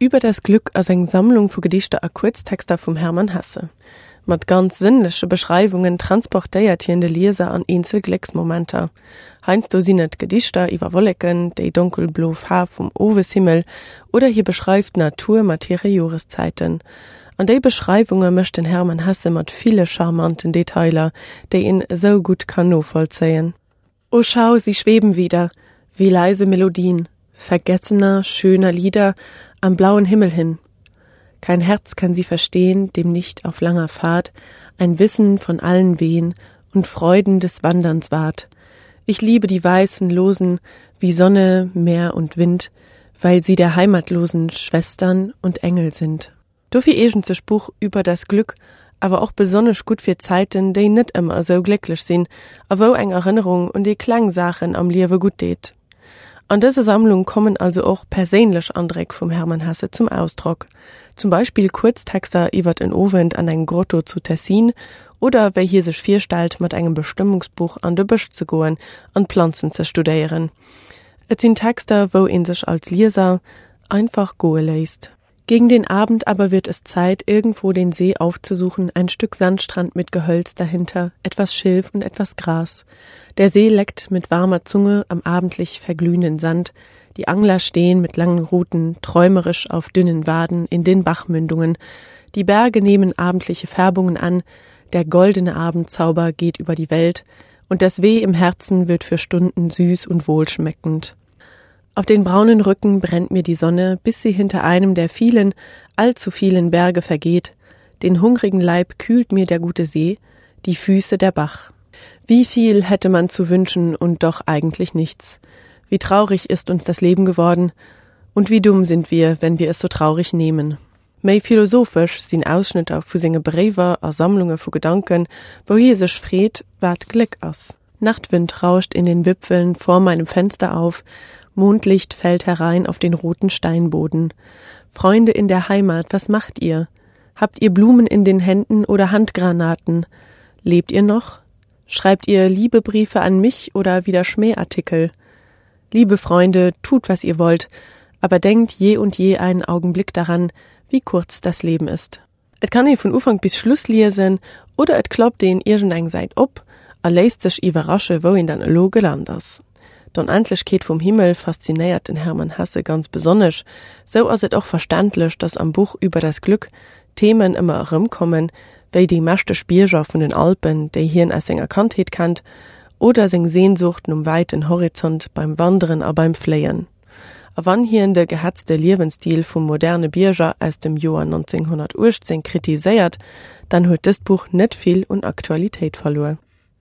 Über das Glück ass eng Sammlung vu Gedichter a Kuerztexter vum Hermann Hesse. Mat ganz sënnleche Beschreiwungen transportéiert hien de Lieser an eenzel Glécksmomenter. Heiansdo sinn et Gedichter iwwer Wolleken, déi donkelblo Faarf vum Oweshimmel oder hie beschreift d'Natur mat hire Joreszäiten. An déi Beschreiwunge mécht den Hermann Hesse mat ville charmanten Detailer, déi een esou gutt kann novollzéien. O schau, sie schweben wieder, wie leise Melodien vergessener, schöner Lieder am blauen Himmel hin. Kein Herz kann sie verstehen, dem nicht auf langer Fahrt ein Wissen von allen Wehen und Freuden des Wanderns ward. Ich liebe die weißen Losen wie Sonne, Meer und Wind, weil sie der heimatlosen Schwestern und Engel sind. Dofir eegent sech d'Buch Über das Glück awer och besonnesch gutt fir Zäiten, déi net ëmmer esou glécklech sinn a wou eng Erënnerung un déi kleng Saachen am Liewe gutt deet. An dëser Sammlung kommen also och perséinlech Andréck vum Hermann Hesse zum Ausdrock, zum Beispill Kuerztexter iwwert en Owend an engem Grotto zu Tessin oder wéi hie sech virstellt, mat engem Bestëmmungsbuch an de Bësch ze goen an d'Planzen ze studéieren. Et sinn Texter, wou ee sech als Lieser einfach goe léisst. Gegen den Abend aber wird es Zeit, irgendwo den See aufzusuchen, ein Stück Sandstrand mit Gehölz dahinter, etwas Schilf und etwas Gras. Der See leckt mit warmer Zunge am abendlich verglühenden Sand. Die Angler stehen mit langen Ruten, träumerisch auf dünnen Waden in den Bachmündungen. Die Berge nehmen abendliche Färbungen an, der goldene Abendzauber geht über die Welt, und das Weh im Herzen wird für Stunden süß und wohlschmeckend. Auf den braunen Rücken brennt mir die Sonne, bis sie hinter einem der vielen, allzu vielen Berge vergeht. Den hungrigen Leib kühlt mir der gute See, die Füße der Bach. Wie viel hätte man zu wünschen und doch eigentlich nichts. Wie traurig ist uns das Leben geworden und wie dumm sind wir, wenn wir es so traurig nehmen. Méi philosophesch sinn Ausschnëtter vu senge Bréiwer a Sammlunge vu Gedanken, wou hie sech freet, wat Gléck ass. Nachtwind rauscht in den Wipfeln vor meinem Fenster auf, Mondlicht fällt herein auf den roten Steinboden. Freunde in der Heimat, was macht ihr? Habt ihr Blumen in den Händen oder Handgranaten? Lebt ihr noch? Schreibt ihr Liebebriefe an mich oder wieder Schmähartikel? Liebe Freunde, tut, was ihr wollt, aber denkt je und je einen Augenblick daran, wie kurz das Leben ist. Et kann ee vun Ufank bis Schluss liesen oder et klappt een iergendeng Säit op a léisst sech iwwerrasche wou een dann elo gelant ass. D'Onendlechkeet vum Himmel faszinéiert den Hermann Hesse ganz besonnesch, sou ass et och verständlech, datt am Buch Über das Glück Themen ëmmer erëmkommen, wéi déi mächteg Bierger vun den Alpen, déi hien aus senger Kandheet kennt, oder seng Sehnsucht nom wäiten Horizont beim Wanderen a beim Fléien. A wann hien de gehetzte Liewensstil vum moderne Bierger aus dem Joer 1918 kritiséiert, dann huet dëst Buch net vill un Aktualitéit verluer.